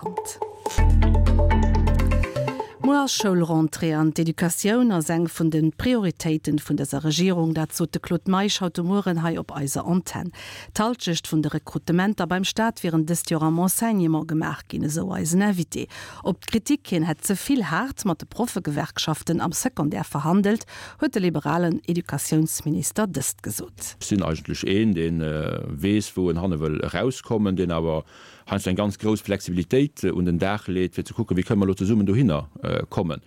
Brennpunkt. Muer ass Schoulrentrée an d'Educatioun ass eng vun de Prioritéiten vun dëser Regierung. Dat sot de Claude Meisch haut de Mueren hei op eiser Antenn. D'Halschecht vun de Rekrutementer beim Staat wieren dëst Joer am Enseignement gemaach ginn, esou eisen Invité. Op d'Kritik, hien hätt ze vill haart mat de Proffegewerkschaften am Secondaire verhandelt, huet de liberalen Educatiounsminister dëst gesot. Ech sinn eigentlech een, dee weess, wou en hanne wëll erauskommen, deen awer heiansdo eng ganz grouss Flexibilitéit un den Dag leet, fir ze kucken, wéi kënne mer elo zesummen dohinner kommen.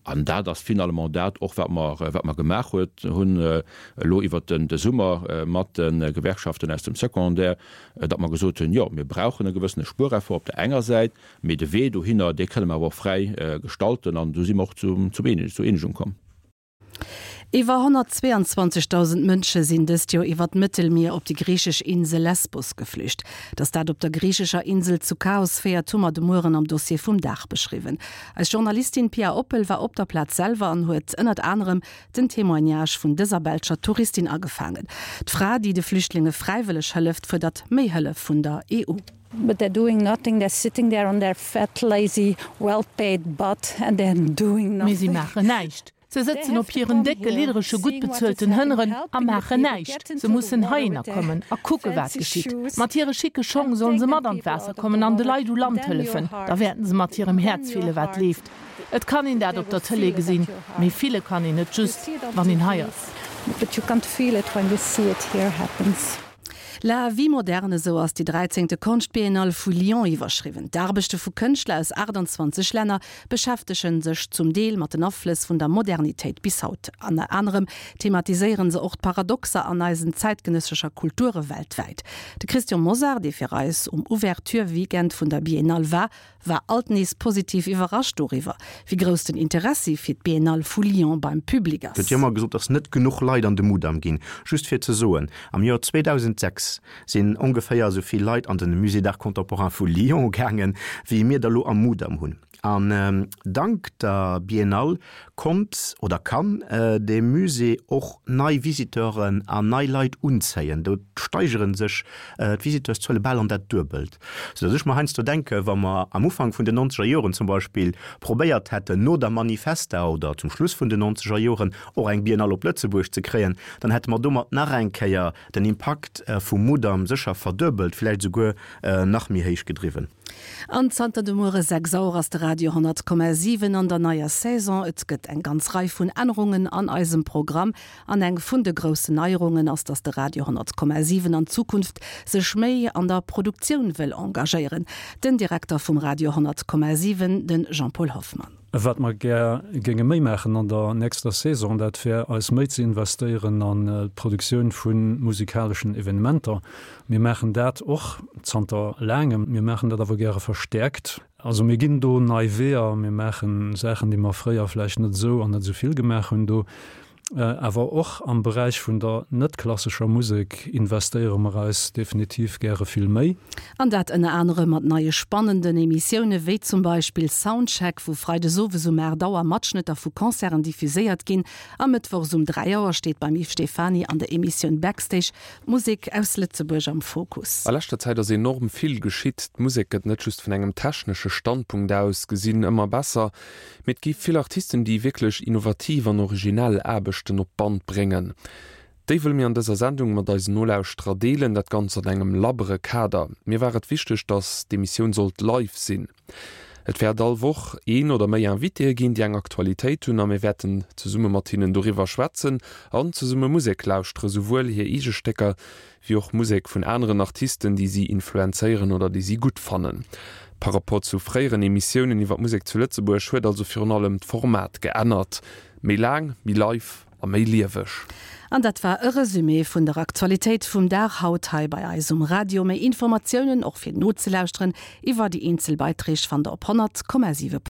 An dat ass finalement dat och, wat mer, wat mer gemaach huet, hunn elo iwwert de Summer mat de Gewerkschaften aus dem Secondaire, datt mer gesot hunn, jo, mir brauchen e gewëssene Spuereffort op der enger Säit, mee de Wee dohinner, dee kënne mer awer och fräi gestalten. An do si mer och zu, zur Eenegung komm. Iwwer 122.000 Mënsche sinn dëst Joer iwwer d'Mëttelmier op déi griichesch Insel Lesbos geflücht. Datt dat op der griichescher Insel zu Chaos féiert, hu mer de Mueren am Dossier vum Dag beschriwwen. Eis Journalistin Pia Oppel war op der Plaz selwer an huet ënnert anerem den Témoignage vun dëser belscher Touristin agefaangen. D'Fra, déi de Flüchtlinge fräiwëlleg hëlleft, fuerdert méi Hëllef vun der EU. But they're doing nothing, they're sitting there on their fat, lazy, well-paid butt and they're doing nothing. Mee si maachen näischt. Se sëtzen op hiren décke, lidderege, gutt bezuelten Hënneren a maachen näischt. Se mussen heihinner kommen a kucke wat geschitt. Mat hire schicke Schong sollen se mat an d'Waasser kommen an de Leit u Land hëllefen. Da wäerten se mat hirem Häerz fille wat leeft. Et kann een dat op der Tëlee gesinn, mee fille kann een et just, wann een hei ass. La vie moderne, esou ass déi dräizéngte Konschtbiennale vu Lyon iwwerschriwwen. D'Aarbechte vu Kënschtler aus 28 Länner beschäftege sech zum Deel mat den Aflëss vun der Modernitéit bis haut. Ënner anerem thematiséiere se och d'Paradoxer an eisen zäitgenëssescher Kulture weltwäit. De Christian Mosar, dee fir eis um Ouverture-Weekend vun der Biennale war, war alt nees positiv iwwerrascht doriwwer, wéi grouss den Interessi fir d'Biennale vu Lyon beim Public ass. Gëtt jo ëmmer gesot, dass net genuch Leit an de Mudam ginn. Just fir ze soen, am Joer 2006 sinn ongeféier esou vill Leit an de Musée d'Art Contemporain vu Lyon gaangen, wéi mir der elo am Mudam hunn. An dank der Biennale konnt oder kann de Musée och nei Visiteuren an nei Leit unzéien. Do steigere sech d'Visiteurszuele bal an dat Duebelt. Sou datt ech mer heiansdo denken, wa mer am Ufank vun den nonzeger Joren zum Beispill probéiert hätten, no der Manifesta oder zum Schluss vun den nonzeger Joren och eng Biennale op Lëtzebuerg ze kréien, dann hätte mer domat nach eng Kéier den Impakt vum Mudam sécher verduebelt, vläicht esouguer nach méi héich gedriwwen. An zanter de Muere 6 Auer ass de Radio 100,7 an der neier Saison. Et gëtt eng ganz Rei vun Ännerungen an eisem Programm. An eng vun de groussen Neierungen ass, dass de Radio 100,7 an Zukunft sech méi an der Produktioun wëll engagéieren. Den Direkter vum Radio 100,7, de Jean-Paul Hoffmann. Wat mer gär géinge méi maachen an der nächster Saison, dat wär eis méi ze investéieren an d'Produktioun vu musikaleschen Evenementer. Mir maachen dat och zanter laangem, mir maachen dat awer gäre verstäerkt. Also mir ginn do nei Weeër, mir maache Saachen, déi mer fréier vläicht net esou an net esou vill gemaach hunn. Do Awer och am Beräich vun der net klassescher Musek investéiere mer eis definitiv gäre vill méi. An dat ënner anerem mat neie spannenden Emissioune wéi zum Beispill Soundcheck, wou freides owes um 8 Auer Matschnëtter vu Concerten diffuséiert ginn a mëttwochs um 3 Auer steet beim Yves Stephany an der Emissioun Backstage d'Musek aus Lëtzebuerg am Fokus. A leschter Zäit ass enorm vill geschitt. D'Musek gëtt net just vun engem technesche Standpunkt aus gesinn ëmmer besser, Mee et gi vill Artisten, déi wierklech innovativ an originell Aarbechten op d'Band bréngen. Déi wëlle mir an dëser Sendung mat eisen Nolauschterer deelen, dat Ganzt an engem labbere Kader. Mir war et wichteg, datt d'Emissioun sollt live sinn. Et wäert all Woch een oder méi Invitéë ginn, déi eng Aktualitéit hunn a mir wäerten zesumme mat hinnen doriwwer schwätzen an zesumme Musek lauschtere, souwuel hir eege Stécker wéi och Musek vun aneren Artisten, déi si influenzéieren oder déi si gutt fannen. Par rapport zu fréieren Emissiounen iwwer d'Musek zu Lëtzebuerg huet also virun allem d'Format geännert, méi laang, méi live a méi lieweg. An dat war e Resumé vun der Aktualitéit vum Dag haut hei bei eis um Radio. Méi Informatiounen, och fir nozelauschteren, iwwer déi eenzel Beiträg fannt der op 100,7.